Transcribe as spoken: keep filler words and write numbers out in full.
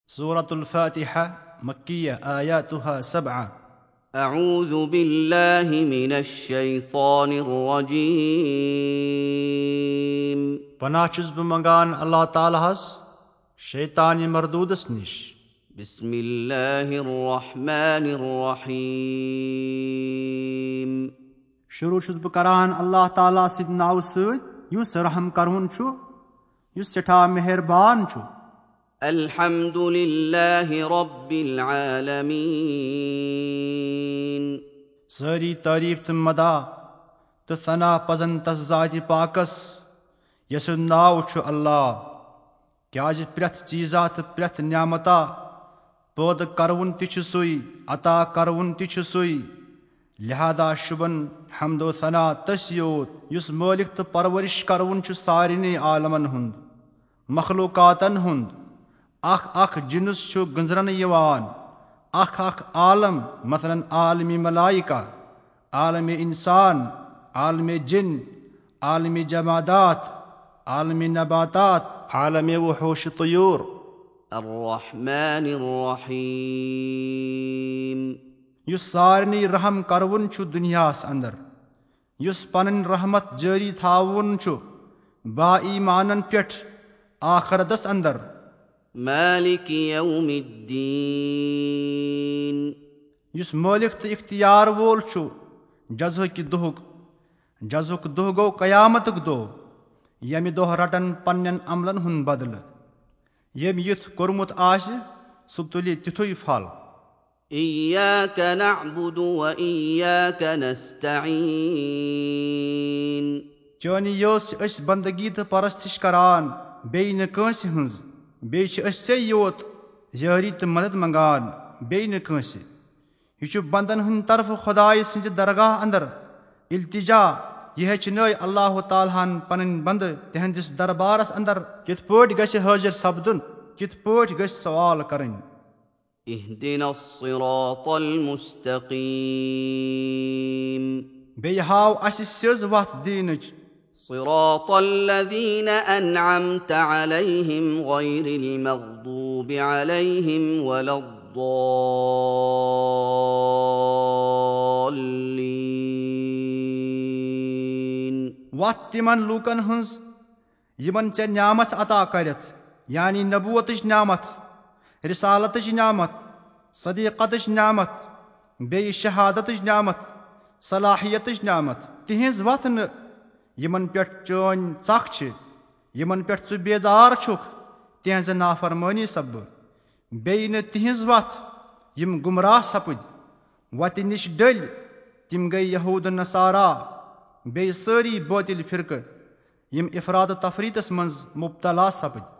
سورة الفاتحة، مكية، آياتها سبعة. أعوذ بالله من الشيطان الرجيم. پناہ چھُس بہٕ منگان اللہ تعالیٰ ہس شیطانِ مردودس نِش۔ بسم الله الرحمن الرحيم. شروع چھُس بہٕ کران اللہ تعالیٰ سٕنٛدِ ناوٕ سۭتۍ، یُس رحم کرون چھُ، یُس سٮ۪ٹھاہ مہربان چھُ۔ الحمد لله رب العالمين. سٲری تعریف تہٕ مداح تہٕ ثنا پزن تس ذاتِ پاکس، یس سُنٛد ناو چھُ اللہ۔ کیازِ پرٛٮ۪تھ چیٖزا تہٕ پرٛٮ۪تھ نعمتا پٲدٕ کرون تہِ چھُ سُے، عطا کرون تہِ چھُ سُے۔ لہذا شُبن حمد و ثنا تٔسی یوت، یُس مٲلِک تہٕ پرورش کرون چھُ سارنٕے عالمن ہُنٛد، مخلوقاتن ہُنٛد۔ اکھ اکھ جنس چھُ گنزرنہٕ یِوان، اکھ اکھ عالم، مثلاً عالمِ ملائکہ، عالمِ انسان، عالمِ جن، عالمِ جمادات، عالمِ نباتات، عالمِ وحوش طیور۔ الرحمن الرحيم. یُس سارنٕے رحم کرون چھُ دُنیاہس اندر، یُس پنٕنۍ رحمت جٲری تھاوون چھُ با ایمانن پٮ۪ٹھ آخرتس اندر۔ مالك يوم الدين. یُس مٲلِک تہٕ اختیار وول چھُ جزاہٕکہِ دۄہُک۔ جزاہُک دۄہ گوٚو قیامتُک دۄہ، ییٚمہِ دۄہ رٹن پننٮ۪ن عملن ہُنٛد بدلہٕ۔ ییٚمۍ یُتھ کوٚرمُت آسہِ، سُہ تُلہِ تِتھُے پھل۔ إياك نعبد وإياك نستعين. چٲنی یٲژ چھِ أسۍ بندگی تہٕ پرستش کران، بیٚیہِ نہٕ کٲنٛسہِ ہٕنٛز۔ بیٚیہِ چھِ أسۍ ژےٚ یوت یٲری تہٕ مدد منگان، بیٚیہِ نہٕ کٲنٛسہِ۔ یہِ چھُ بندن ہٕنٛدِ طرفہٕ خۄدایہِ سٕنٛزِ درگاہ اندر التجا۔ یہِ ہیٚچھنٲے اللہ تعالیٰ ہن پنٕنۍ بندٕ تِہنٛدِس دربارس اندر کِتھ پٲٹھۍ گژھِ حٲضِر سپدُن، کِتھ پٲٹھۍ گژھِ سوال کرٕنۍ۔ اهدنا الصراط المستقيم. بیٚیہِ ہاو اسہِ سیٚز وتھ دیٖنٕچ۔ صراط الذين أنعمت عليهم غير المغضوب عليهم ولا الضالين. وتھ تِمن لوٗکن ہٕنٛز یِمن ژےٚ نعمت عطا کرتھ، یعنی نبوتٕچ نعمت، رسالتٕچ نعمت، صدیقتٕچ نعمت، بیٚیہِ شہادتٕچ نعمت، صلاحیتٕچ نعمت، تِہنٛز وتھ نہٕ، یِمن پٮ۪ٹھ چٲنۍ ژکھ چھِ، یِمن پٮ۪ٹھ ژٕ بیزار چھُکھ، تِہنٛزِ نافرمٲنی سببہٕ۔ بیٚیہِ نہٕ تِہنٛز وتھ، یِم گمراہ سپٕدۍ، وتہِ نِش ڈٔلۍ، تِم گٔے یہود نصارا، بیٚیہِ سٲری بٲطِل فرقہٕ، یِم افراط و تفریطس منٛز مبتلا سپٕدۍ۔